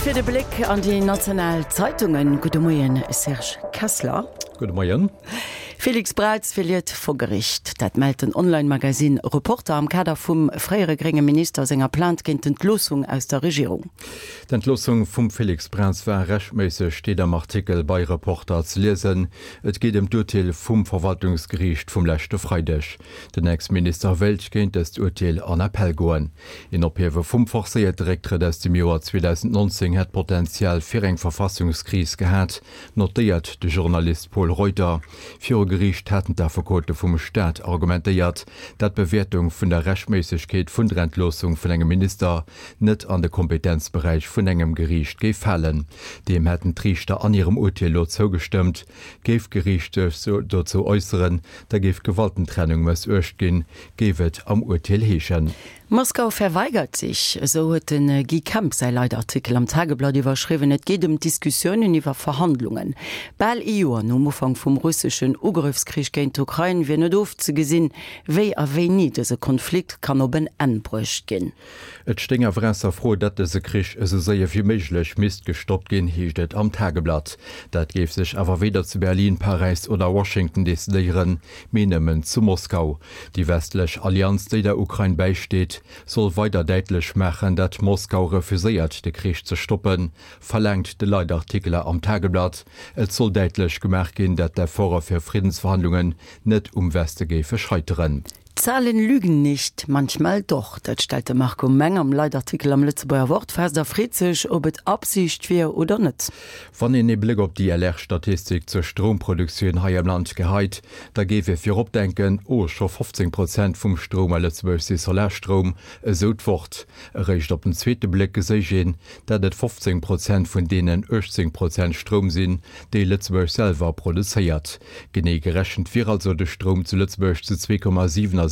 Fir de Bléck an déi national Zeitungen. Gudde Moien, Serge Kessler. Gudde Moien. Félix Braz verliert vor Gericht. Dat mellt den Online-Magazin Reporter am Kader vum fréiere grénge Minister senger Plainte géint d'Entloossung aus der Regierung. D'Entloossung vum Félix Braz war rechtméisseg, steet am Artikel bei Reporter ze liesen. Et geet ëm d'Urteel vum Verwaltungsgeriicht vum leschte Freideg. Den Ex-Minister wéilt géint dëst Urteel an Appell goen. Een Ophiewe vum forcéierte Récktrëtt aus dem Joer 2019 hätt Potential fir eng Verfassungskris gehat, notéiert de Journalist Pol Reuter. Viru Geriicht haten d'Affekote vum Staat argumentéiert, dat d'Bewäertung vun der Rechtméissegkeet vun der Entloossung vun engem Minister net an de Kompetenzberäich vun engem Geriicht géif falen. Deem hätten d'Riichter an hirem Urteel lo zougestëmmt. Géif d'Geriicht sech dozou äusseren, da géif d'Gewaltentrennung mëssuecht ginn, géif et am Urteel heeschen. Moskau verweigert sich, esou huet de Guy Kemp säi Leitartikel am Tageblatt iwwerschriwwen. Et geet ëm d'Diskussiounen iwwer Verhandlungen. Bal ee Joer nom Ufank vum russeschen Ugrëffskrich géint d'Ukrain wier net ofzegesinn, wéi a wéini dëse Konflikt kann op en Enn bruecht ginn. Et stéing awer ausser Fro, datt dëse Krich esou séier wéi méiglech misst gestoppt ginn, heescht et am Tageblatt. Dat géif sech awer weder zu Berlin, Paräis oder Washington decidéieren, mee nëmmen zu Moskau. Déi westlech Allianz, déi der Ukrain bäisteet, soll weider däitlech maachen, datt Moskau refuséiert, de Krich ze stoppen, verlaangt de Leitartikler am Tageblatt. Et soll däitlech gemaach ginn, datt d'Efforte fir Friddensverhandlungen net um Weste géife scheiteren. Zahlen lügen nicht, manchmal doch. Dat stellt de Marco Meng am Leitartikel am Lëtzebuerger Wort fest a freet sech, ob et Absicht wier oder net. Wann een ee Bléck op déi LR-Statistik zur Stroumproduktioun hei am Land geheit, da géif ee virop denken, oh, scho 15 Prozent vum Stroum a Lëtzebuerg si Solarstroum, esou d'Wort. Eréischt op den zweete Bléck geséich een, dat et 15 Prozent vun deenen 18 Prozent Stroum sinn, déi Lëtzebuerg selwer produzéiert. Genee gerechent wier also de Stroum zu Lëtzebuerg zu 2,77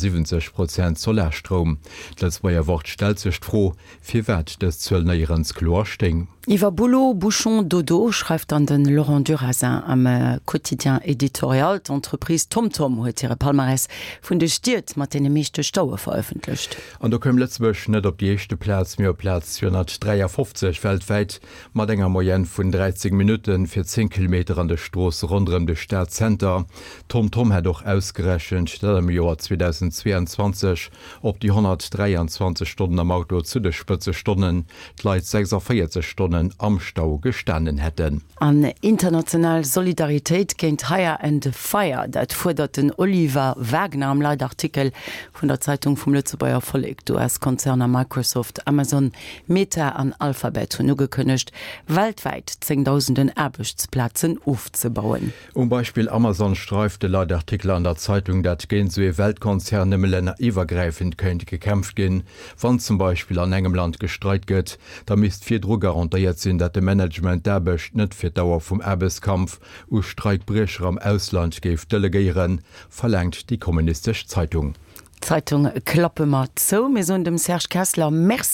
Prozent Solarstroum. D'Lëtzebuerger Wort stellt sech d'Fro, firwat dës Zuel néierens kloer stéing. Iwwer Boulot, Bouchon, Dodo schreift dann de Laurent Durazin am Quotidien Editorial. D'Entreprise TomTom huet hire Palmarès vun de Stied mat deene meeschte Staue verëffentlecht. An do koum Lëtzebuerg net op déi éischte Plaz, mee op Plaz 253 weltwäit. Mat enger Moyenne vun 13 Minutte fir 10 Kilometer an de Stroosse ronderëm de Stadzenter. TomTom hätt och ausgerechent, datt am Joer 2022 op déi 123 Stonnen am Auto zu de Spëtzestonnen d'Leit 46 Stonnen am Stau gestanen hätten. An international Solidaritéit géint Hire and Fire, dat fuerdert den Oliver Wagner am Leitartikel vun der Zeitung vum Lëtzebuerger Vollek. D'US-Konzerner Microsoft, Amazon, Meta an Alphabet hunn ugekënnegt, weltwäit zéngdausenden Aarbechtsplazen ofzebauen. Um Beispill Amazon streift de Leitartikel an der Zeitung, dat géint esou ee Weltkonzern nëmme länneriwwergräifend kéint gekämpft ginn. Wann zum Beispill an engem Land gestreikt gëtt, da misst virdru garantéiert sinn, dat de Management d'Aarbecht net fir d'Dauer vum Aarbechtskampf u Streikbriecher am Ausland géif delegéieren, verlaangt déi kommunistesch Zeitung. D'Zeitung klappe mer zou. Mir soen dem Serge Kessler Merci.